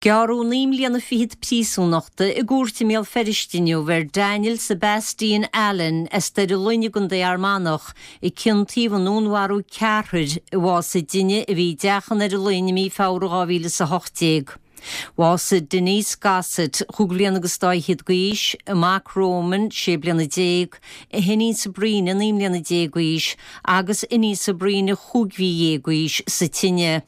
Gearradh 9 mbliana fichead príosúnachta i gcúirt i mBéal Feirste inniu ar Daniel Sebastian Allen as Doire Fhloinn i gContae Fhear Manach i ciontaíodh i ndúnmharú ceathrair i bhásaigh duine a bhí i dteach i nDoire Fhloinn i mí Feabhra 2018. Bhásaigh Denise Gossett, chúig bhliana agus dá fhichead d'aois, a mac Roman, 16 bliana, a hiníon Sabrina, 19 mbliana d'aois, agus iníon Sabrina, chúig mhí dhéag d'aois, sa tine.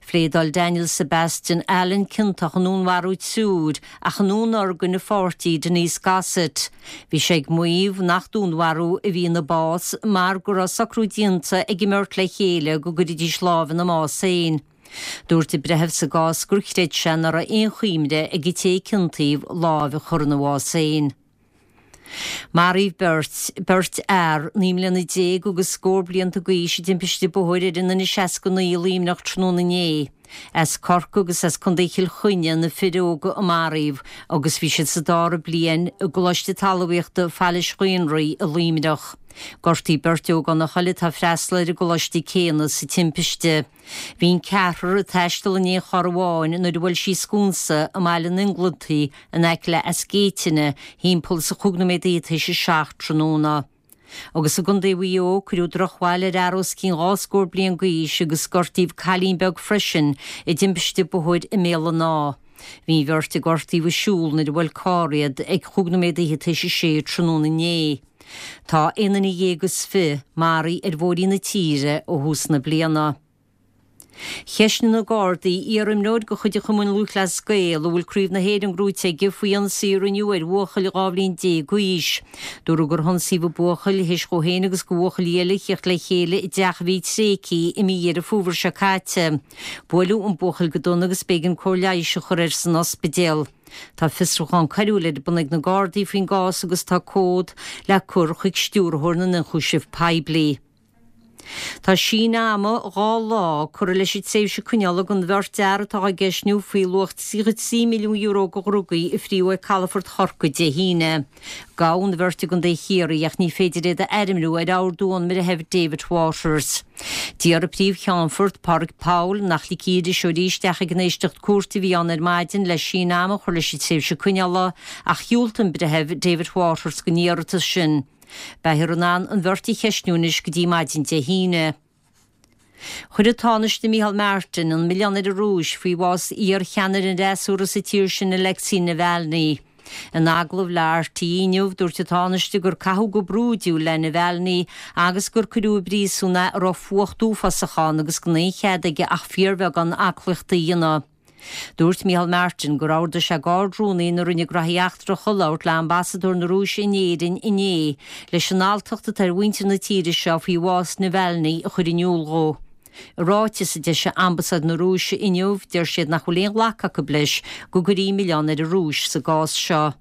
Phléadáil Daniel Sebastian Allen ciontach i ndúnmharú triúir ach i ndúnorgain a pháirtí Denise Gossett. Bhí sé ag maíomh nach dúnmharú a bhí ina bás mar go raibh socrú déanta ag an mbeirt le chéile go gcuirfidís lámh ina mbás féin. Dúirt an breitheamh sa gcás gur chreid sé nach raibh aon chuimhne ag an té a ciontaíodh lámh a chur ina bhás féin. Maraíodh beirt, beirt fhear, 19 mbliana agus scór blianta d'aois i dtimpiste bóthair ar an N69 i Luimneach tráthnóna inné. As Corcaigh agus as Contae Chill Chainnigh na fir óga a maraíodh agus bhí siad sa dara bliain i gColáiste Talmhaíochta Phailís Ghaonraí i Luimneach. Gortaíodh beirt ógánach eile atá ag freastal ar an gcoláiste céanna sa timpiste. Bhí an ceathrar ag taisteal in aon charr amháin nuair a bhuail sí sconsa i mBaile an Inglintigh in aice le Eas Géitine thimpeall is a chúig nóiméad fhichead théis a 7 tráthnóna. Agus i gContae Mhaigh Eo, cuireadh drochbhail ar fhear os cionn dhá scór bliain d'aois agus gortaíodh cailín beag freisin i dtimpiste bóthair i mBéal an Átha. Bhí an bheirt a gortaíodh ag siúl nuair a bhuail carr iad ag chúig nóiméad fhichead théis a sé tráthnóna inné. Tá aon duine dhéag is fi maraithe ar bhóithrí na tíre ó thús na bliana. Cheistnigh na Gardaí iar-imreoir de chuid an Chumainn Lúthchleas Gael a bhfuil Craobh na hÉireann gnóite aige faoi ionsaí a rinneadh ar bhuachaill 12 bhliain d'aois. Dúradh gur hionsaíodh an buachaill théis dhó féin agus do bhuachaillí eile a thíocht le chéile i dteach a bhí tréigthe i mí Dheireadh Fómhair seo caite. Buaileadh an buachaill go dona agus b'éigean cóir leighis a chur air san ospidéal. Tá fiosrúchán coiriúil ar bun ag na Gardaí faoin gcás agus tá comhad le cur chuig Stiúrthóir na nIonchúiseamh Poiblí. Tá síneadh ama 2 lá curtha leis an tréimhse coinneála don bheirt fhear atá á gceistniú faoi luach €33 milliún de dhrugaí a fríodh ag calafort Chorcaí Dé hAoine. Gabhadh an bheirt i gContae Chiarraí ach ní féidir iad a ainmniú ar ordú ón mBreitheamh David Waters. D'iarr an Príomh-Cheannfort, Pádraig Powell, nach ligfí iriseoirí isteach ag an éisteacht cúirte a bhí ann ar maidin le síneadh ama a chur leis an tréimhse coinneála ach dhiúltaigh an Breitheamh David Waters don iarratas sin. Beifear in ann an bheirt a cheistniú anois go dtí maidin Dé hAoine. Chuir an Tánaiste Micheál Martin an milleán ar an Rúis faoi bhás iar-cheannaire an fhreasúra sa tír sin Alexei Navalny. In agallamh le RTÉ inniu, dúirt an Tánaiste gur caitheadh go brúidiúil le Navalny agus gur cuireadh i bpríosún é a raibh fuacht uafásach ann agus gan aon chead aige ach fíorbheagán aclaíochta a dhéanamh. Dúirt Micheál Martin gur ordaigh sé d'Ard-Rúnaí na Roinne Graithí Eachtracha labhairt le Ambasadóir na Rúise in Éirinn inné leis an alltacht atá ar mhuintir na tíre seo faoi bhás Navalny a chur in iúl dhó. I ráiteas a d'eisigh Ambasáid na Rúise inniu, deir siad nach bhfuil aon ghlacadh acu leis go gcuirfí milleán ar an Rúis sa gcás seo.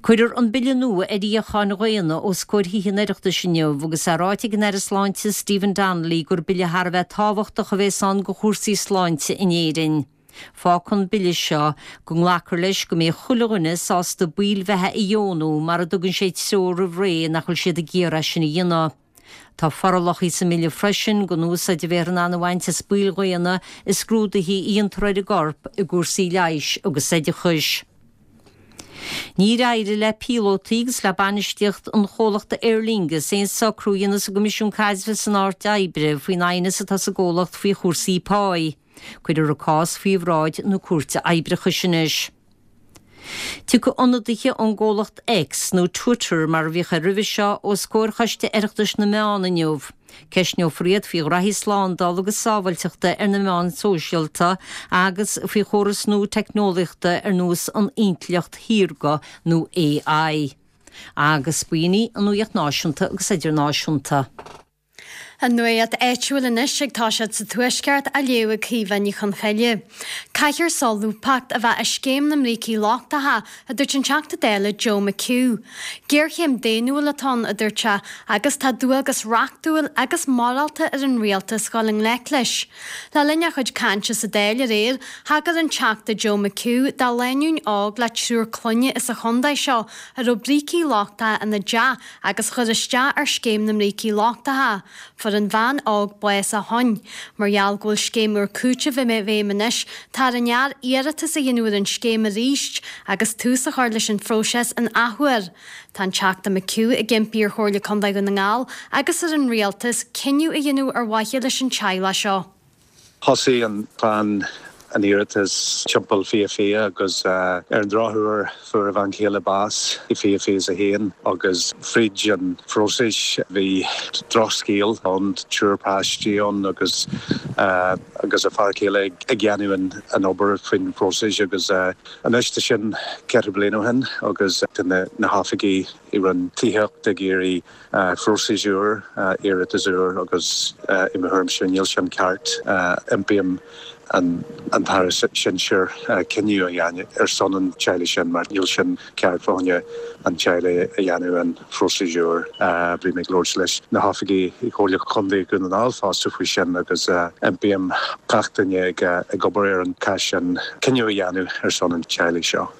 Cuirfear an bille nua ar fhíocháin dhaonna os comhair Thithe an Oireachtais inniu agus é ráite ag an Aire Sláinte Stephen Donnelly gur bille thar a bheith tábhachtach a bhéas ann do chúrsaí sláinte in Éirinn. Fágfaidh an bille seo go nglacfar leis go mbeidh chuile dhuine sásta baill bheatha a dheonú mara dtugann sé treoir roimh ré nach bhfuil siad ag iarraidh sin a dhéanamh. Tá forálacha sa mbille freisin don úsáid a bheifear in ann a bhaint as baill dhaonna i scrúduithe a dhéantar ar an gcorp i gcúrsaí leighis agus oideachais. Níor éirigh le píolótaí agus le bainistíocht an chomhlachta Aer Lingus aon socrú a dhéanamh sa gCoimisiún Caidrimh san Áit Oibre faoin aighneas atá sa gcomhlacht faoi chúrsaí páí. Cuirfear an cás faoi bhráid na Cúirte Oibreachais anois. Tiocfaidh ionadaithe ón gcomhlacht X, nó Twitter mar a bhíodh air roimhe seo, os comhair Choiste Oireachtais na Meán inniu. Ceistneofar iad faoi ghraithí slándála agus sábháilteachta ar na meáin shóisialta agus faoi chóras nua teicneolaíochta ar nós an intleacht shaorga nó AI. Agus b'in í an nuacht náisiúnta agus idirnáisiúnta. An nuacht áitiúil anois ag toiseacht sa Tuaisceart á léamh ag Caoimhe Ní Chonchoille. Caithfear solúbthacht a bheith i scéim na mbrící lochtacha, a dúirt an Teachta Dála Joe McHugh. Géarchéim daonnúil atá ann, a dúirt sé, agus tá dualgas reachtúil agus morálta ar an rialtas dhul i ngleic leis. Le linn a chuid cainte sa Dáil aréir, thagair an Teachta Joe McHugh do lánúin óg le triúr clainne as an chontae seo a raibh brící lochtacha ina dteach agus a chuir isteach ar scéim na mbrící lochtacha. fuair an bhean óg bás ó shoin. Mar gheall go bhfuil scéim úr cúitimh i bhfeidhm anois, tá ar an fhear iarratas a dhéanamh ar an scéim arís agus tús a chur leis an phróiseas an athuair. Tá an Teachta McHugh ag impí ar Chomhairle Contae Dhún na nGall agus ar an Rialtas cinneadh a dhéanamh ar mhaithe leis an teaghlach seo. Thosaigh an chlann an iarratas timpeall 2020 agus ar an drochuair fuair a bhean chéile bás i 2021 agus fríd an phróiseas bhí drochscéal ann, triúr páistí ann agus agus a fear céile ag déanamh an obair faoin phróiseas agus anois tá sin ceithre bliana ó shin agus tá na hoifigigh i Roinn Tithíochta ag iarraidh Phróiseas úr, iarratas úr agus i mo thuairimse níl sin ceart. Impím an tAire Sinsir cinneadh a dhéanamh ar son an teaghlaigh sin mar níl sin ceart fá choinne an teaghlaigh a dhéanamh an phróiseas úr. Bhí mé ag labhairt leis na hoifigigh i Comhairle Chontae Dhún na nGall fosta faoi sin agus impím gach duine ag obair ar an cás sin cinneadh a dhéanamh ar son an teaghlaigh seo.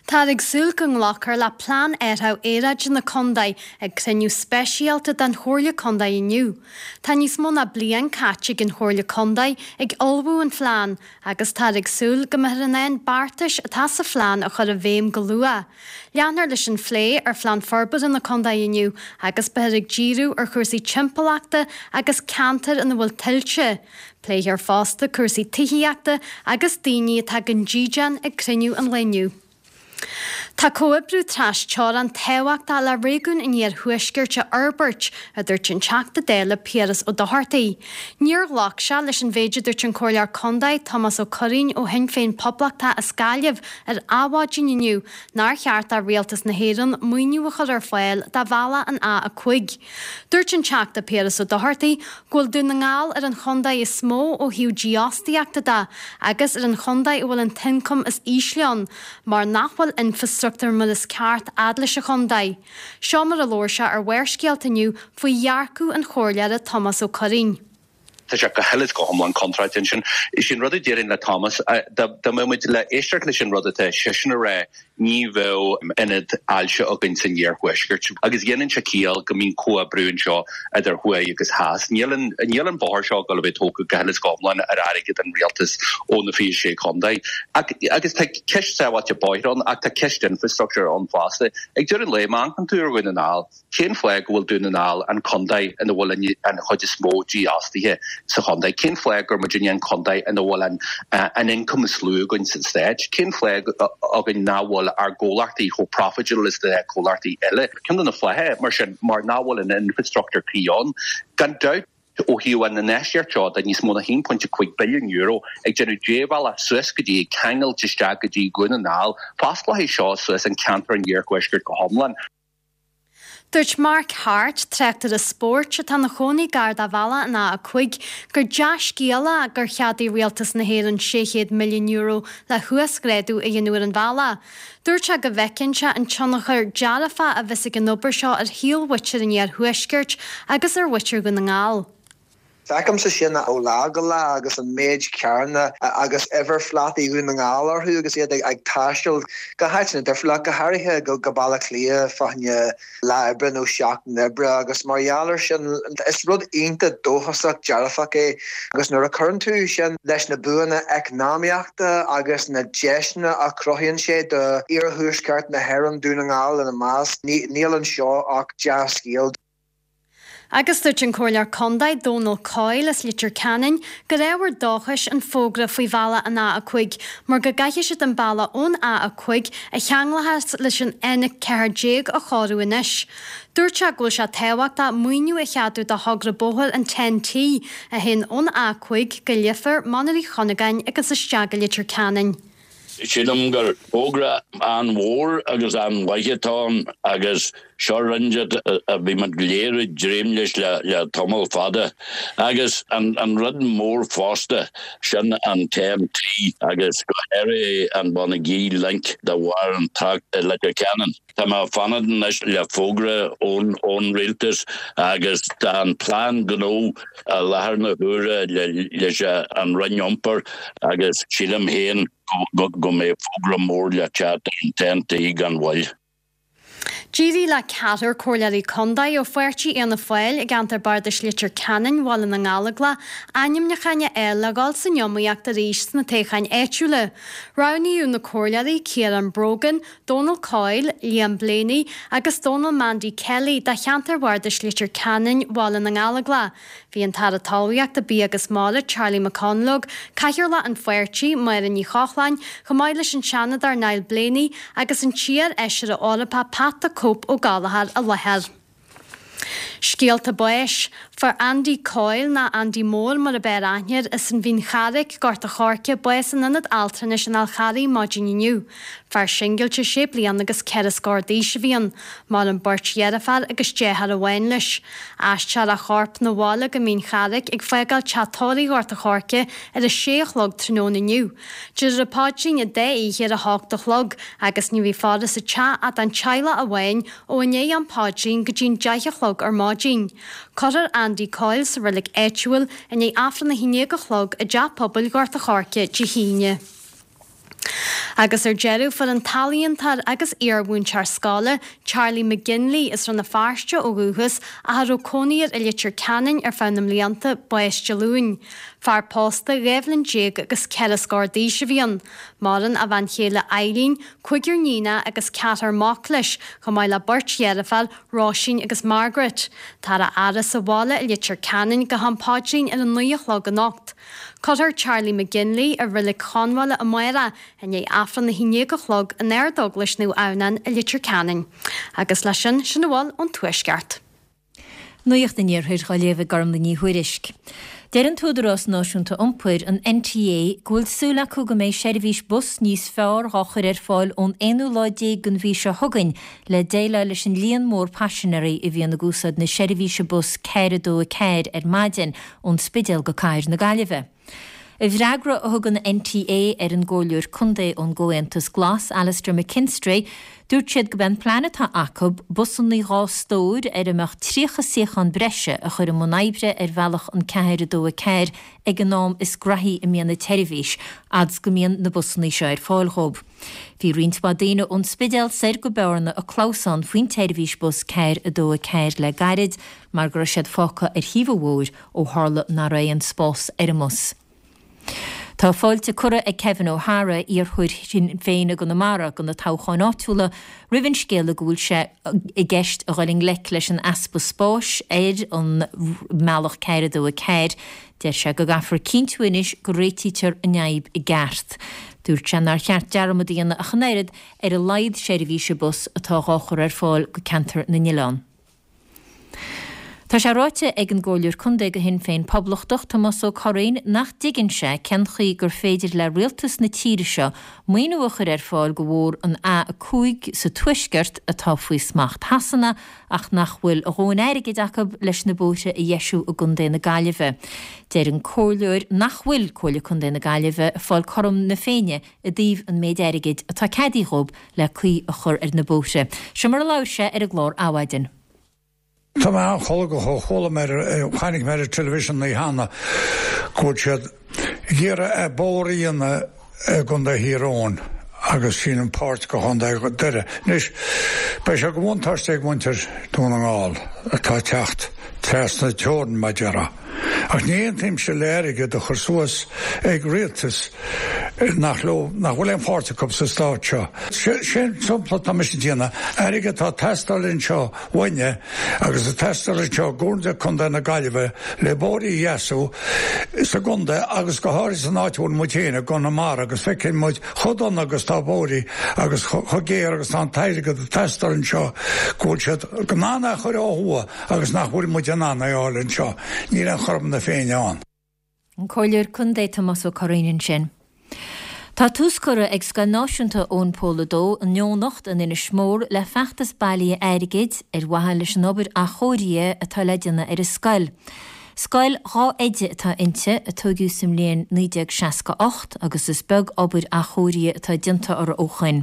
Táthar ag súil go nglacfar le Plean Athraithe Aeráide na Contae ag cruinniú speisialta den Chomhairle Contae inniu. Tá níos mó ná bliain caite ag an Chomhairle Contae ag ullmhú an phlean agus táthar ag súil go mbeifear in ann beartais atá sa phlean a chur i bhfeidhm go luath. Leanfar leis an phlé ar Phlean Forbartha na Contae inniu agus beifear ag díriú ar chúrsaí timpeallachta agus ceantair ina bhfuil tuilte. Pléifear fosta cúrsaí tithíochta agus daoine atá gan dídean ag cruinniú an lae inniu. Tá comhoibriú tras-teorann tábhachtach le réigiún an Iarthuaiscirt a fhorbairt, a dúirt an Teachta Dála Piaras Ó Dochartaigh. Níor ghlac sé leis an mhéid a dúirt an Comhairleoir Contae Tomás Ó Curraoin ó Shinn Féin Poblachtach as Gaillimh ar Adhmhaidin inniu nár cheart do Rialtas na hÉireann maoiniú a chur ar fáil do bhealach an A5. Dúirt an Teachta Piaras Ó Dochartaigh go bhfuil Dún na nGall ar an chontae is mó ó thaobh dífhostaíochta de agus ar an chontae a bhfuil an t-ioncam is ísle ann mar nach bhfuil infreastruchtúr mar is ceart fhad leis an chontae. Seo mar a labhair sé ar Bharrscéalta inniu faoi dhearcadh an Chomhairleora Tomás Ó Curraoin. Tá sé go huile is go hiomlán contráilte ansin. Is é an rud a déarfainn le Thomas, dá mbeadh muid le éisteacht leis an rud atá seisean a rá, ní bheadh ionad ailse againn san iarthuaisceart. Agus déanann sé ciall go mbíonn comhoibriú anseo idir thuaidh agus theas. Níl an, níl an bóthar seo ag dul a bheith tógtha go huile is go hiomlán ar airgead an rialtais ó na 26 chontae. Ach, agus tá ceist sábháilte bóithre ann ach tá ceist infrastructure ann fosta. Ag deireadh an lae, má amharcann tú ar Dhún na nGall, Cén fáth go bhfuil Dún na nGall an contae ina bhfuil an chuid is mó dífhostaithe sa chontae? Cén fáth gur muidinne an contae ina bhfuil an an ioncam is lú againn sa stát? Cén fáth againn nach bhfuil ár gcomhlachtaí chomh profitable is na comhlachtaí eile? Ceann de na fátha, mar sin, mar nach bhfuil an infrastructure cuí ann. Gan dabht. Ó thaobh an infheistíocht seo de níos mó ná €1.5 billiún ag déanamh débhealach suas go dtí, ag ceangailt isteach go dtí Dhún na nGall, fosclóidh seo suas an ceantar an iarthuaiscirt go hiomlán. Dúirt Mark Harte, tráchtaire spóirt atá ina chónaí gar do bhealach an A5, gur dea-scéal é gur cheadaigh Rialtas na hÉireann €600 milliún le huasghrádú a dhéanamh ar an bhealach. Dúirt sé go bhfeiceann sé an tionchar dearfach a bheas ag an obair seo ar shaol mhuintir an iarthuaiscirt agus ar mhuintir Dhún na nGall. Feicimse sin ó lá go lá agus an méid carranna agus uimhirphlátaí Dhún na nGall orthu agus iad ag taisteal go háiteanna difriúla, go háirithe go Baile Átha Cliath fá choinne lá oibre nó seachtain oibre agus mar gheall air sin is rud iontach dóchasach dearfach é agus nuair a chuireann tú sin leis na buanna eacnamaíochta agus na deiseanna a chruthaíonn sé do iarthuaisceart na hÉireann, Dún na nGall ina measc, níl anseo ach dea-scéal. Agus dúirt an Comhairleoir Contae Dónal Coyle as Leitir Ceanainn gur ábhar dóchais an fógra faoi bhealach an A5 mar go gcaithfidh siad an bealach ón A5 a cheanglóchas leis an N14 a chóiriú anois. Dúirt sé go bhfuil sé tábhachtach maoiniú a cheadú do thogra bóthair an TEN-T a théann ón A5 go Leifear, Mainír Uí Chuinneagáin agus isteach go Leitir Ceanainn. Sílim gur fógra an-mhór agus an-mhaith atá ann agus seo rud a bhí muid go léir ag dréim leis le tamall fada. Agus an rud mór fosta, sin an TEN-T agus go háirithe an Bonagee Link de bharr an trácht i Leitir Ceanainn. Tá mé ag fanacht anois le fógra ón Rialtas agus tá an plean gnó i láthair na huaire leis an Roinn Iompair agus sílim féin go mbeidh fógra mór le teacht ar an TEN-T gan mhoill. D'éirigh le ceathrar comhairleoirí contae ó pháirtí Fhianna Fáil i gceantar Bardais Leitir Ceanainn, Bhaile na nGallóglach, ainmniúcháin a fháil le dhul san iomaíocht arís sna toghcháin áitiúla. Roghnaíodh na comhairleoirí Ciarán Brogan, Dónal Coyle, Liam Blaney agus Dónal Mandy Kelly do cheantar Bhardais Leitir Ceanainn, Bhaile na nGallóglach. Bhí an tAire Talmhaíochta, Bia agus Mara, Charlie McConalogue, Cathaoirleach an pháirtí, Máire Ní Chochláin, chomh maith leis an Seanadóir Niall Blaney agus an t-iar-fheisire Eorpach Pat the Cope Ó Gallchóir i láthair. Scéalta báis. Fuair Andy Coyle, nó Andy Mór mar ab fhearr aithne air, as an Mhín Charraic, Gort a' Choirce, bás in Ionad Altranais an Fhál Charraigh maidin inniu. Fear singilte sé bliana agus ceithre scór d'aois a bhí ann. Maireann beirt dheirféar agus deartháir amháin leis. Aistreofar a chorp 'na bhaile go Mín Charraic ag fágáil teach tórraimh Ghort a' Choirce ar a sé a chlog tráthnóna inniu. Déarfar an paidrín an dá oíche ar a hocht a chlog agus ní bheidh faire sa teach ach don teaghlach amháin ó i ndiaidh an phaidrín go dtí'n deich a chlog ar maidin. Cuirfear Andy Coyle sa reilig áitiúil i ndiaidh Aifreann a haon déag a chlog i dTeach Pobail Ghort a' Choirce Dé hAoine. Agus ar deireadh, fuair an t-ealaíontóir agus iar-mhúinteoir scoile, Charlie McGinley, as Rann na Feirste ó dhúchas ach a raibh cónaí air i Leitir Ceanainn ar feadh na mblianta, bás Dé Luain. Fear pósta, 12 bhliain agus ceithre scór d'aois a bhí ann. Maireann a bhean chéile Eileen, cúigear níonacha agus ceathrar mac leis, chomh maith le beirt dheirféar, Róisín agus Margaret. Táthar á fhaire sa bhaile i Leitir Ceanainn go ham paidrín ar a naoi a chlog anocht. Cuirfear Charlie McGinley i Reilig Chonbháile amárach i ndiaidh Aifreann a haon déag a chlog in Ardeaglais Naomh Adhamhnáin i Leitir Ceanainn. Agus leis sin, sin a bhfuil ón Tuaisceart. Nuacht an Iarthair á léamh ag Gormlaith Ní Thuairisg. Deir an tÚdarás Náisiúnta Iompair, an NTA, go bhfuil súil acu go mbeidh seirbhís bus níos fearr dhá chur ar fáil ón aonú lá déag den mhí seo chugainn le déileáil leis an líon mór paisinéirí a bhíonn ag úsáid na seirbhíse bus 4 2 4 ar maidin ón Spidéal go Cathair na Gaillimhe. I bhfreagra a thug an NTA ar an gComhairleoir Contae ón gComhaontas Glas, Alastair McKinstry, dúirt siad gurb é an plean atá acu busannaí dhá stór ar a mbeadh 30 suíochán breise a chur i mbun oibre ar bhealach an 4 2 4 ag an am is graithí a mbíonn an tseirbhís, fhad 's go mbíonn na busannaí seo ar fáil dhóibh. Bhí roinnt mhaith daoine ón Spidéal soir go Bearna ag clamhsán faoin tseirbhís bus 4 2 4 le gairid mar go raibh siad fágtha ar thaobh an bhóthair ó tharla nach raibh aon spás ar an mbus. Tá fáilte curtha ag Kevin O'Hara, iarrthóir Shinn Féin i gConamara do na toghcháin áitiúla, roimh an scéala go bhfuil sé i gceist a dhul i ngleic leis an easpa spáis ar an mbealach 4 2 4. Deir sé go gcaithfear cinntiú anois go réitítear an fhadhb i gceart. Dúirt sé nár cheart dearmad a dhéanamh ach an oiread ar a laghad seirbhíse bus atá dhá chur ar fáil go Ceantar na nOileán. Tá sé ráite ag an gComhairleoir Contae do Shinn Féin Poblachtach, Tomás Ó Curraoin, nach dtuigeann sé cén chaoi gur féidir le rialtas na tíre seo maoiniú a chur ar fáil do bhóthar an A5 sa Tuaisceart atá faoi smacht Shasana ach nach bhfuil a dhóthain airgid acu leis na bóithre a dheisiú i gContae na Gaillimhe. Deir an Comhairleoir nach bhfuil Comhairle Contae na Gaillimhe ag fáil cothrom na Féinne i dtaobh an méid airgid atá ceadaithe dhób le caoi a chur ar na bóithre. Seo mar a labhair sé ar an gclár Adhmhaidin. Tá mé an-cholgach ó chuala mé ar, chonaic mé ar an television an oíche cheana go bhfuil siad ag iarraidh bóthar a dhéanamh i gContae Thír Eoghain agus sílim páirt de Chontae Dhoire. Anois, beidh sé de bhuntáiste ag muintir Dún na nGall atá ag teacht trasna teorann, mar a déarfá. Ach ní aontaímse le airgead a chur suas ag rialtas nach leo, nach bhfuil aon pháirt acu sa stát seo. Sé an sampla atá mise ag déanamh, airgead atá ag teastáil anseo uainne agus ag teastáil anseo i gComhairle Contae na Gaillimhe le bóithre a dheasú sa gcontae agus go háirithe san áit a bhfuil muid féin i gConamara agus feiceann muid chomh dona agus tá bóithre agus chomh géar agus tá an t-airgead ag teastáil anseo go bhfuil siad in ann é a chur ó thuaidh agus nach bhfuil muid in ann é a fháil anseo, níl aon chothrom na Féinne ann. An Comhairleoir Contae Tomás Ó Curraoin ansin. Tá tús curtha ag Scoil Náisiúnta Eoin Pól a Dó in Eoghanacht in Inis Mór le feachtas bailithe airgid ar mhaithe leis an obair athchóirithe atá le déanamh ar an scoil. Scoil dhá oide atá inti, a tóigeadh sa mbliain 1968 agus is beag obair athchóirithe atá déanta uirthi ó shoin.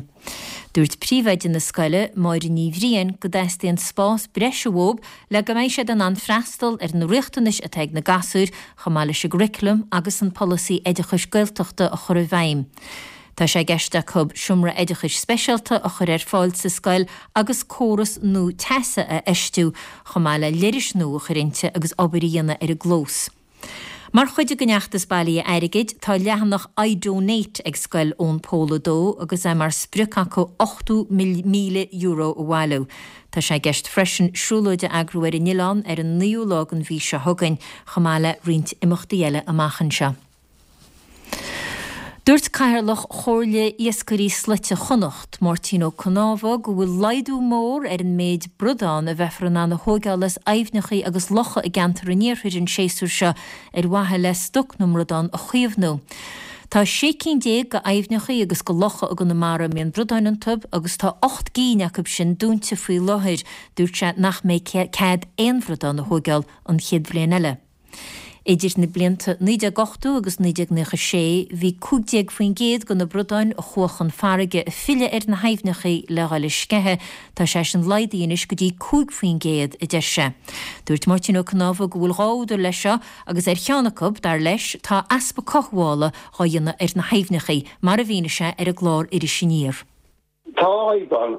Dúirt príomhoide na scoile, Máire Ní Bhriain, go dteastaíonn spás breise uathu le go mbeidh siad in ann freastal ar na riachtanais atá ag na gasúir, chomh maith leis an gcurriculum agus an polasaí oideachais Gaeltachta a chur i bhfeidhm. Tá sé i gceist acu seomra oideachais speisialta a chur ar fáil sa scoil agus córas nua teasa a fheistiú, chomh maith le leithris nua a chur inti agus obair a dhéanamh ar an gclós. Mar chuid den fheachtas bailithe airgid, tá leathanach iDonate ag Scoil Eoin Pól 2 agus é mar sprioc acu €80,000 a bhailiú. Tá sé i gceist freisin siúlóid a eagrú ar an oileán ar an naoú lá den mhí seo chugainn, chomh maith le roinnt imeachtaí eile amach anseo. Dúirt Cathaoirleach Chomhairle Iascairí Slaite Chonnacht, Máirtín Ó Cnámha, go bhfuil laghdú mór ar an méid bradán a bheifear in ann a thóigeáil as aibhneacha agus locha i gceantar an iarthair an séasúr seo ar mhaithe le stoc na mbradán a chaomhnú. Tá 16 cinn de aibhneacha agus de locha i gConamara a mbíonn bradáin iontu agus tá 8 gcinn acu sin dúnta faoi láthair. Dúirt sé nach mbeidh cead aon bhradán a thóigeáil an chéad bhliain eile. Idir na blianta 1980 agus 1996, bhí 15% de na bradáin a chuaigh chun farraige ag filleadh ar na haibhneacha le dhul ag sceitheadh, tá sé sin laghdaithe anois go dtí 5%, a deir sé. Dúirt Máirtín Ó Cnámha go bhfuil dhá údar leis seo agus ar cheann acu, dar leis, tá easpa cothabhála dhá dhéanamh ar na haibhneacha, mar a mhínigh sé ar an gclár Iris Aniar. Tá fadhb ann.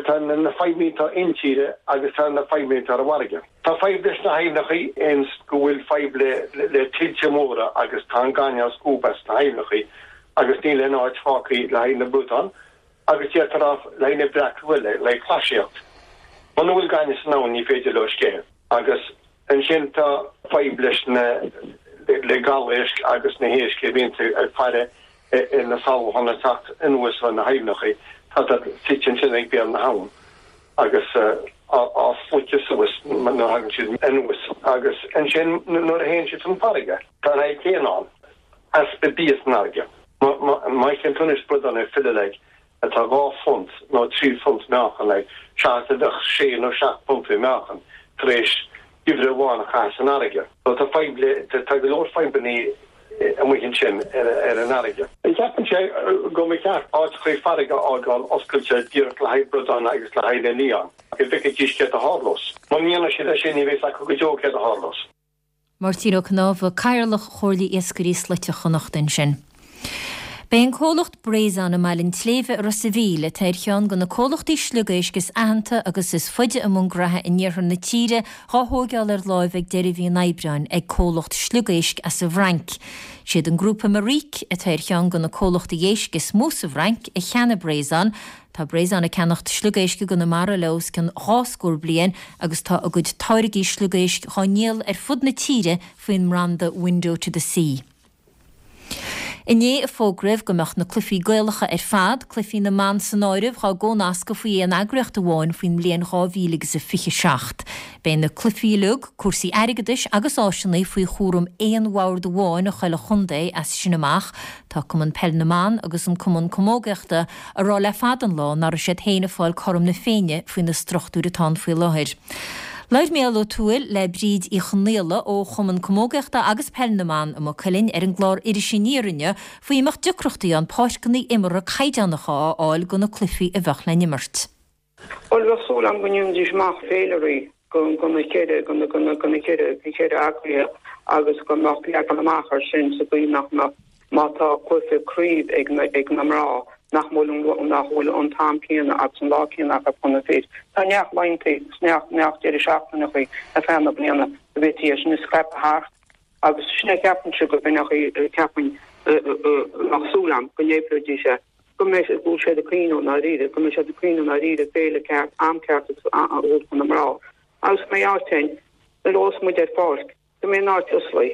Tá na fadhbanna atá intíre agus tá na fadhbanna atá ar an bhfarraige. Tá fadhb leis na haibhneacha ins go bhfuil fadhb le le tuilte móra agus tá an gaineamh á scuabadh as na haibhneacha agus níl aon áit fágtha le haghaidh na bradán agus d'fhéadfá a rá le haghaidh na breac eile, le haghaidh clasaíocht. Muna bhfuil gaineamh san abhainn ní féidir leo sceitheadh. Agus ansin tá fadhb leis na le gabhéisc agus na héisc a bhíonns ag faire ar na salacháin ag teacht anuas ó na haibhneacha, tá siad suite ansin ag béal na habhann agus á sloiceadh suas nuair a thagann siad anuas. Agus ansin nuair a théann siad chun farraige, tá an fhadhb chéanna ann, easpa bia san fharraige. Má fheiceann tú anois bradán ag filleadh like, atá 2 phunt nó 3 phunt meáchan like, seachas a bheadh sé nó seacht bpunt i meáchan tar éis geimhreadh amháin a chaitheamh san fharraige. So tá fadhb le, tá go leor fadhbannaí amuigh ansin ar an fharraige. Ceapaimse go mba cheart áiteachaí farraige a fhágáil oscailte díreach le haghaidh bradán agus le haghaidh na lián, go bhfeicfidís céard a tharlós. Muna ndéanann siad é sin ní bheidh fhios acu go deo céard a tharlós. Máirtín Ó Cnámha, Cathaoirleach Chomhairle Iascairí Slaite Chonnacht ansin. Beidh an comhlacht Breizon i mBaile an tSléibhe i Ros a' Mhíl, atá ar cheann de na comhlachtaí sliogéisc is aitheanta agus is faide i mbun graithe in iarthar na tíre, dhá thóigeáil ar láimh ag deireadh mhí an Aibreáin ag comhlacht sliogéisc as an bhFrainc. Siad an grúpa Maric, atá ar cheann de na comhlachtaí éisc is mó sa bhFrainc, a cheannaigh Breizon. Tá Breizon ag ceannacht sliogéisc i gConamara le os cionn 2 scór bliain agus tá a gcuid táirgí sliogéisc dhá ndíol ar fud na tíre faoin mbranda Window to the Sea. Inné a fógraíodh go mbeadh na cluichí Gaelacha ar fad, cluichí na mban san áireamh, dhá gcónascadh faoi aon eagraíocht amháin faoin mbliain 2027. Beidh na cluichí uilig, cúrsaí airgeadais agus áiseanna faoi chúram aon bhord amháin i chuile chontae as sin amach. Tá Cumann Peil na mBan agus an Cumann Camógaíochta ag rá le fada an lá nach raibh siad féin ag fáil cothrom na Féinne faoi na struchtúir atá ann faoi láthair. Labhair Mícheál Ó Tuathail le Bríd Uí Chonaola ó Chumann Camógaíochta agus Peil na mBan i Maigh Cuilinn ar an gclár Iris Aniar inniu faoi an mbeadh deacrachtaí ann páirceanna imeartha caighdeánacha a fháil do na cluichí a bheadh le n-imirt. Bhuel, bheadh súil agam go ndéanfaidís amach féilirí do na ceithre, do na, do na ceithre, na ceithre eagraithe agus go mbeadh leagan amach air sin sa gcaoi nach mbeadh, má tá cluiche craoibh ag na, ag na mná, nach bhfuil an, nach bhfuil an t-am céanna agus an lá céanna acu chun na fir. Tá neart laethanta agus neart, neart deireadh seachtaineacha ar feadh na bliana go bhféadfaí é sin a scaipeadh thart. Agus sin é ceapaimse go b'in é ceapaim bheadh súil agam go n-oibreoidís é, go mbeidh, go bhfuil siad ag cuimhneamh i ndáiríre, go mbeidh siad ag cuimhneamh i ndáiríre féile ceart, am ceart agus a thabhairt do na mná. Agus go mbeidh áit ann, nuair a bheas muid ar pháirc, go mbeidh an áit osclaí,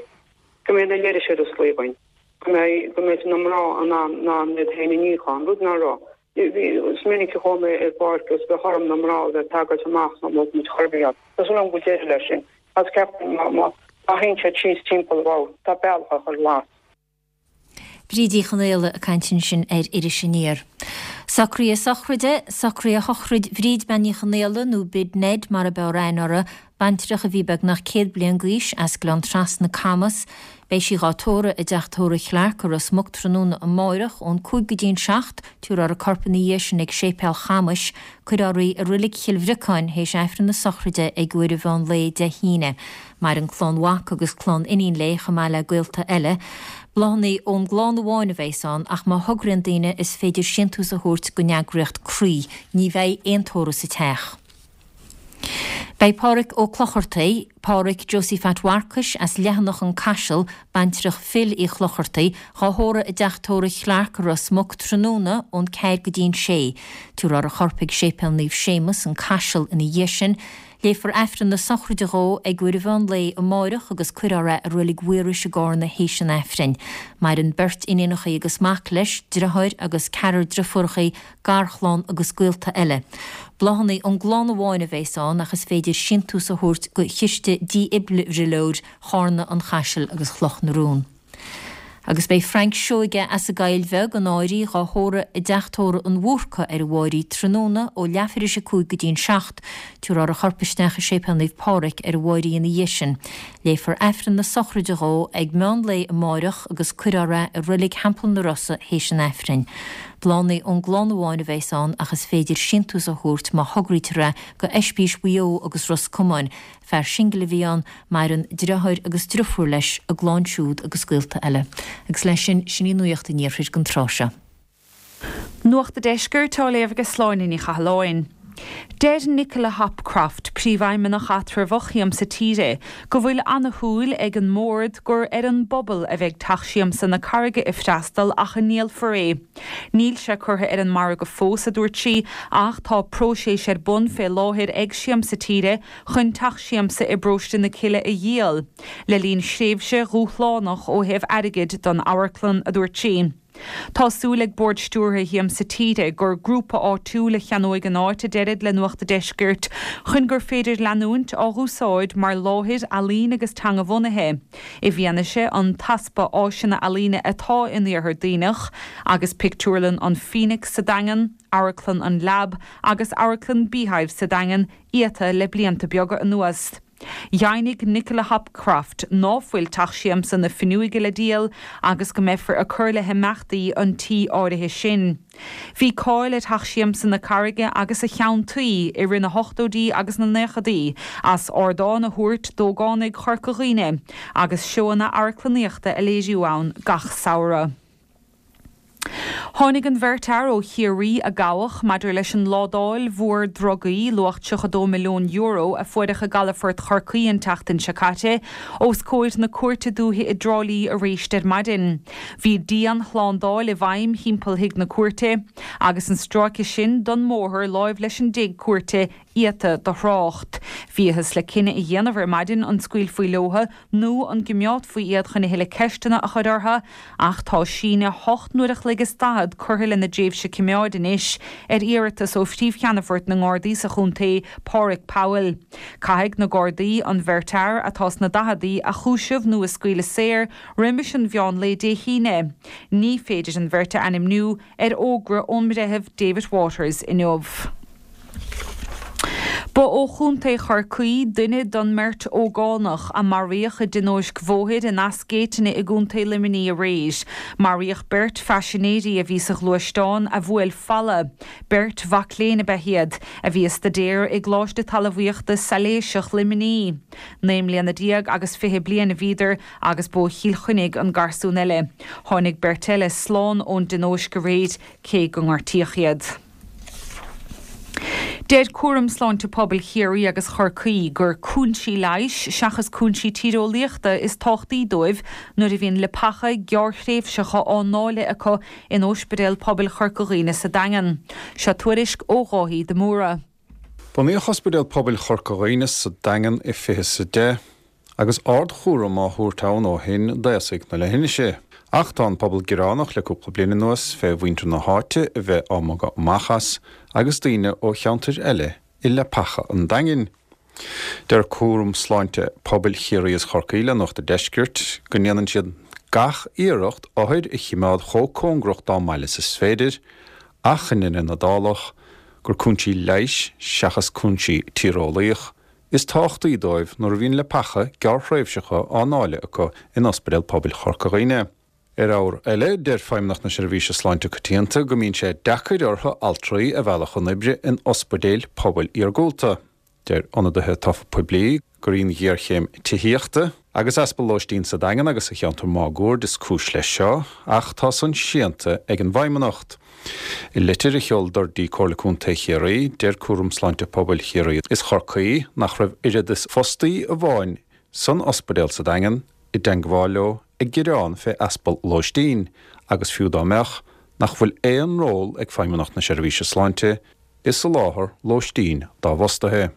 go mbeidh na leithris ar osclaí againn, go mbeidh, go mbeidh na mná in ann, in ann iad féin a níochán, rud ná raibh. Is minic a chuaigh mé ar pháirc agus bheadh orm na mná a bheith ag tagairt amach sna mbeadh muid chor ar bith ann. Tá súil agam go bhfuil deireadh leis sin. Agus ceapaim má, má théann siad síos timpeall bhuel, tá bealach á chur glas. Bríd Uí Chonaola ag caint ansin ar Iris Aniar. Socruithe sochraide, Socruithe shochraid Bhríd Bean Ní Chonaola, nó Bid Ned mar ab fhearr aithne uirthi, baintreach a bhí beagnach 100 bliain d'aois, as Gleann Trasna, Camas. Beidh sí dhá tórramh i dteach tórraimh Chlarke i Ros Muc tráthnóna amáireach ón 5 go dtí an 7, tabharfar a corp ina dhiaidh sin ag Séipéal Chamais. Cuirfear í i Roilig Chill Bhriocáin théis Aifreann na sochraide ag uair an mheán lae Dé hAoine. Maireann clann mhac agus clann iníon léi chomh maith le gaolta eile. Bláthanna ón gclann amháin a bheas ann ach má thograíonn daoine is féidir síntiús a thabhairt don eagraíocht Croí. Ní bheidh aon tórramh sa teach. Beidh Pádhraic Ó Clochartaigh, Pádhraic Josie Phat Mharcais as Leathanach an Caiseal, baintreach Phil Uí Chlochartaigh, dhá thórramh i dteach tórraimh Chlarke i Ros Muc tráthnóna ón ceathair go dtí an sé. Tabharfar a chorp ag Séipéal Naomh Séamus, an Caiseal ina dhiaidh sin. Léifear Aifreann na sochraide dhó ag uair an mheán lae amáireach agus cuirfear é i Reilig Mhaorais i gCárna théis an Aifrinn. Maireann beirt iníonachaí agus mac leis, driotháir agus ceathrar driofúrachaí, garchlann agus gaolta eile. Bláthanna ón gclann amháin a bheas ann ach is féidir síntiús a thabhairt go Chiste Dífhibrileoir Chárna, an Chaisil agus Chloch na Rón. Agus beidh Frank Seoige as an gCoill Bheag, an Áirí, dhá thórramh i dteach tórraimh an Bhúrca ar an Mháirí tráthnóna ó leathuair théis 5 go dtí an 7. Tabharfar a chorp isteach i Séipéal Naomh Pádraig ar an Mháirí ina dhiaidh sin. Léifear Aifreann na sochraide dhó ag meán lae amáireach agus cuirfear é i Reilig Theampall na Rosa théis an Aifrinn. Bláthanna ón gclann amháin a bheas ann ach is féidir síntiús a thabhairt má thograítear é go Oispís Mhaigh Eo agus Ros Comáin. Fear singil a bhí ann, maireann driotháir agus driofúr leis, a gclann siúd agus gaolta eile. Agus leis sin, sin í Nuacht an Iarthair don tráth seo. Nuacht a' Deiscirt á léamh ag Sláine Ní Chathalláin. Deir Nicola Hopcroft, Príomhfheidhmeannach eatramhach Shiamsa Tíre, go bhfuil ana-shúil ag an mBord gur ar an bpobal a bheidh Teach Siamsa na Carraige ag freastal ach a ndíolfar é. Níl sé curtha ar an margadh fós, a dúirt sí, ach tá próiseas ar bun fé láthair ag Siamsa Tíre chun Teach Siamsa i bParóiste na Cille a dhíol, le linn thréimhse dhúshlánach ó thaobh airgid don amharclann, a dúirt sí. Tá súil ag Bord Stiúrtha Shiamsa Tíre gur grúpa áitiúil a cheannóidh an áit, a deirid le Nuacht a' Deiscirt, chun gur féidir leanúint á dh'úsáid mar láthair ealaíne agus teanga-bhunaithe, i bhfianaise an t-easpa áiseanna ealaíne atá in Iarthar Duibhneach, agus pictiúrlann an Phoenix sa Daingean, Amharclann an Lab agus Amharclann Beehive sa Daingean iata le blianta beaga anuas. Dheimhnigh Nicola Hopcroft ná fuil Teach Siamsa na Finneoige le díol agus go mbeifear ag cur le himeachtaí an tí áirithe sin. Bhí cáil ar Theach Siamsa na Carraige agus a cheann tuí i rith na hochtóidí agus na naochadaí as ardán a thabhairt d'ógánaigh Chorca Dhuibhne agus seóanna amharclannaíochta a léiriú ann gach samhradh. Tháinig an bheirt fhear ó Chiarraí a gabhadh maidir leis an ládáil mhór drugaí, luach €32 milliún, a fuaireadh i gcalafort Chorcaí an tseachtain seo caite, os comhair na Cúirte Dúiche i dTrá Lí aréist ar maidin. Bhí dian-shlándáil i bhfeidhm thimpeall thigh na cúirte, agus an stráice sin don mbóthar láimh leis an dtigh cúirte iata do thrácht. Bhíothas le cinneadh a dhéanamh ar maidin an scaoilfí leotha nó an gcimeádfaí iad chun a thuilleadh ceisteanna a chur orthu, ach tá síneadh hocht n-uair a chloig is daichead curtha lena dtréimhse cimeáid anois ar iarratas ó Phríomh-Cheannfort na nGardaí sa chontae, Páraic Powell. Caithfidh na Gardaí an bheirt fhear, atá sna daicheadaí, a chúiseamh nó a scaoileadh saor roimis an mheán lae Dé hAoine. Ní féidir an bheirt a ainmniú ar fhógra ón mBreitheamh David Waters inniu. Ba ó Chontae Chorcaí duine den mbeirt ógánach a maraíodh i dtionóisc bhóthair in Eas Géitine i gContae Luimnigh aréir. Maraíodh beirt phaisinéirí a bhí sa ghluaisteán a bhuail falla. Beirt mhac léinn ab ea iad, a bhí ag staidéar i gColáiste Talmhaíochta Sailéiseach Luimnigh. 19 mbliana agus 20 bliain a bhíodar agus b'ó Chill Chainnigh an garsún eile. Tháinig beirt eile slán ón dtionóisc aréir, cé go ngortaíodh iad. Deir Cúram Sláinte Pobail Chiarraí agus Chorcaí gur cúinsí leighis seachas cúinsí tíreolaíochta is tábhachtaí dóibh nuair a bhíonn leapacha gearrthréimhseacha á ndáileadh acu in Ospidéal Pobail Chorca Dhuibhne sa Daingean. Seo tuairisc ó Dháithí de Mórdha. Bunaíodh Ospidéal Pobail Chorca Dhuibhne sa Daingean i 2010 agus ardchúram á thabhairt ann ó shin d'aosaigh na leithinise. Ach tá an pobal gearánach le cúpla bliain anuas fé mhuintir na háite a bheith á mbogadh amach as agus daoine ó cheantair eile i leapacha an Daingin. Deir Cúram Sláinte Pobail Chiarraí is Chorcaí le Nuacht a' Deiscirt go ndéanann siad gach iarracht othair a chimeád chomh cóngarach dá mbaile is is féidir ach i ndeireadh na dálach gur cúinsí leighis seachas cúinsí tíreolaíoch is tábhachtaí dóibh nuair a bhíonn leapacha gearrthréimhseacha á ndáileadh acu in Ospidéal Pobail Chorca Dhuibhne. Ar ábhar eile, deir Feidhmeannacht na Seirbhíse Sláinte Coitianta go mbíonn sé deacair orthu altraí a mhealladh chun oibre in ospidéil pobail iargúlta. Deir ionadaithe tofa poiblí gur í an ghéarchéim tithíochta. Agus easpa lóistín sa Daingean agus sa cheantar máguaird is cúis leis seo, ach tá san séanta ag an bhFeidhmeannacht. I litir a sheol dtí Comhairle Contae Chiarraí, deir Cúram Sláinte Pobail Chiarraí is Chorcaí nach raibh oiread is fostaí amháin san ospidéal sa Daingean i dteangmháil leo ag gearán fé easpa lóistín agus fiú dá mbeadh, nach bhfuil aon ról ag Feidhmeannacht na Seirbhíse Sláinte i soláthar lóistín dá bhfostaithe.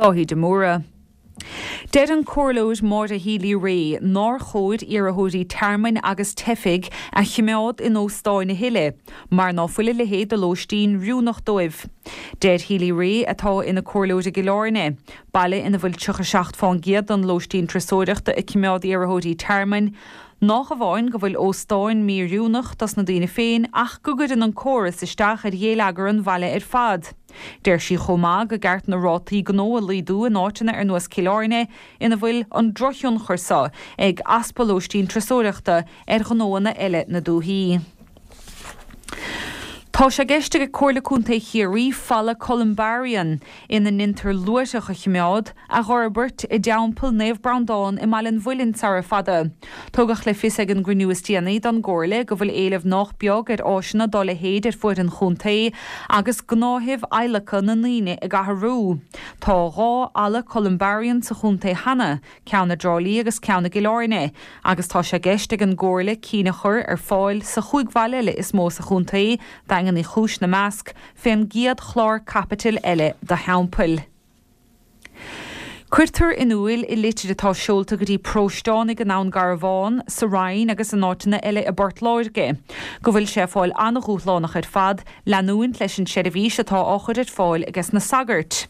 Dáithí de Mórdha. Deir an Comhairleoir Maura Healy-Rae nár chóir iarrthóirí tearmainn agus teifigh a chimeád in óstáin a thuilleadh mar ná fuil a leithéid de lóistín oiriúnach dóibh. Deir Healy-Rae, atá ina comhairleoir i gCill Airne, baile ina bhfuil 37 fán gcéad den lóistín turasóireachta ag cimeád iarrthóirí tearmainn, Nách amháin go bhfuil óstáin mí-oiriúnach dos na daoine féin ach go gcuireann an córas isteach ar ghéilleagar an bhaile ar fad. Deir sí chomh maith go gceart na rátaí gnó a laghdú in áiteanna ar nós Cill Airne ina bhfuil an drochthionchar so ag easpa lóistín turasóireachta ar ghnóanna eile na dúthaí. Tá sé i gceist ag Comhairle Contae Chiarraí falla Columbarium, ina ndeintear luaithreach a chimeád, a dh'fhorbairt i dTeampall Naomh Breandán i mBaile an Mhuilinn sara fada. Tugadh le fios ag an gcruinniú is déanaí don gComhairle go bhfuil éileamh nách beag ar áiseanna dá leithéid ar fuaid an chontae agus gnáthaimh adhlactha na ndaoine ag athrú. Tá 2 fhalla Columbarium sa chontae cheana, ceann i dTrá Lí agus ceann i gCill Airne, agus tá sé i gceist ag an gComhairle cinn a chur ar fáil sa chúig bhaile eile is mó sa chontae, Daingean Uí Chúis 'na measc, fén gcéad chlár caipitil eile do theampaill. Cuirtear in úil i litir atá seolta go dtí paróisteánaigh i nDún Garbhán, sa Rinn agus in áiteanna eile i bPort Láirge, go bhfuil sé ag fáil an-dhúshlánach ar fad leanúint leis an tseirbhís atá á chur ar fáil ages na sagairt.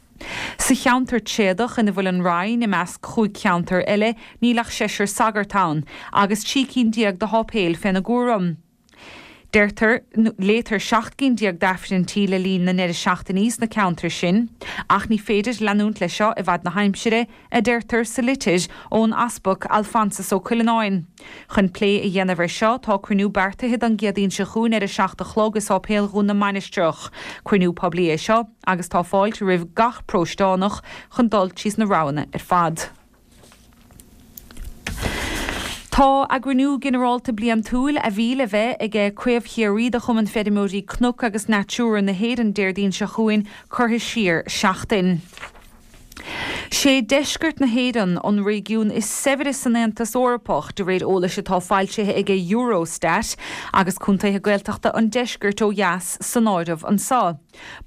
Sa cheantar tréadach ina bhfuil an Rinn, i measc chúig cheantar eile, níl ach seisear sagart ann, agus 13 cinn de sháipéil féna gcúram. Deirtear, léitear 17 gcinn d'Aifrinntí le linn na ndeireadh seachtainí sna ceantair sin, ach ní féidir leanúint leis seo i bhfad na haimsire, a deirtear sa litir ón Easpag Alphonsus Ó Cuileanáin. Chun plé a dhéanamh ar seo, tá cruinniú beartaithe don gCéadaoin seo chugainn ar a 7 a chlog i Sáipéal Dhún na Mainistreach. Cruinniú poiblí é seo agus tá fáilte roimh gach paróisteánach chun dul tríos na roghanna ar fad. Tá a gcruinniú ginearálta bliantúil, a bhí le bheith aige Craobh Chiarraí de Chumann Feirmeoirí Cnoc agus Natura na hÉireann Déardaoin seo chugainn, curtha siar seachtain. Sé deisceart na hÉireann an réigiún is saibhre san Aontas Eorpach, de réir eolais atá foilsithe aige Eurostat, agus contaetha Gaeltachta an deiscirt ó dheas san áireamh anseo.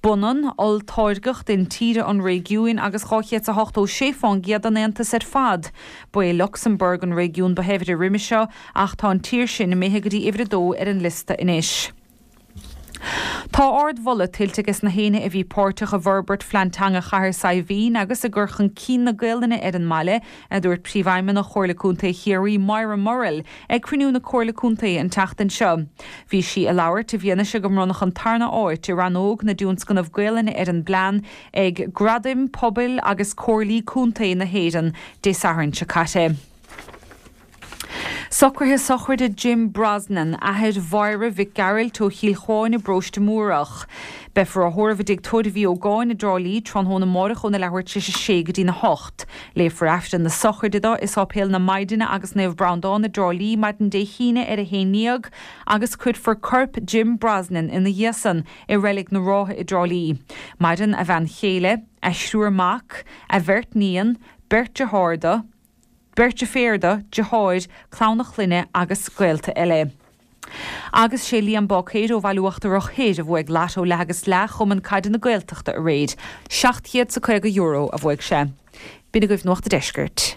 B'ionann olltáirgeacht intíre an réigiúin agus 286 fán gcéad den Aontas ar fad. Ba é Lucsamburg an réigiún ba shaibhre roimhe seo, ach tá an tír sin imithe go dtí uimhir a dó ar an liosta anois. Tá ard-mholadh tuillte ages na héinne a bhí páirteach i bhforbairt Phlean Teanga Chathair Saidhbhín agus i gcur chun cinn na Gaolainne ar an mbaile, a dúirt Príomhfheidhmeannach Chomhairle Contae Chiarraí, Moira Murrell, ag cruinniú na Comhairle Contae an tseachtain seo. Bhí sí ag labhairt i bhfianaise go mbronnadh an tarna áit i rannóg na dtionscnamh Gaolainne ar an bplean ag Gradaim Pobail agus Comhairlí Contae na hÉireann Dé Sathairn seo caite. Socruithe sochraide Jim Brosnan, athair Mháire Mhic Gearailt ó Chill Chuáin i bParóiste Múrach. Beifear á thórramh i dTigh Tórraimh Uí Ógáin i dTrá Lí tráthnóna amárach óna leathuair tar éis a sé go dtína hocht. Léifear Aifreann na sochraide dó i Sáipéal na Maighdine agus Naomh Breandán i dTrá Lí maidin Dé hAoine ar a haon ndéag agus cuirfear corp Jim Brosnan ina dhiaidh san i Reilig na Rátha i dTrá Lí. Maireann a bhean chéile, a thriúr mac, a bheirt níon, beirt dearthár dó, Beirt deirféar dó, deartháir, clann a chlainne agus gaolta eile. Agus sé Liam Báicéir ó Bhaile Uachtarach Thoir a bhuaigh Lotto Leath agus Leath Chumann Caide na Gaeltachta aréir. €750 a bhuaigh sé. B'in agaibh Nuacht a' Deiscirt.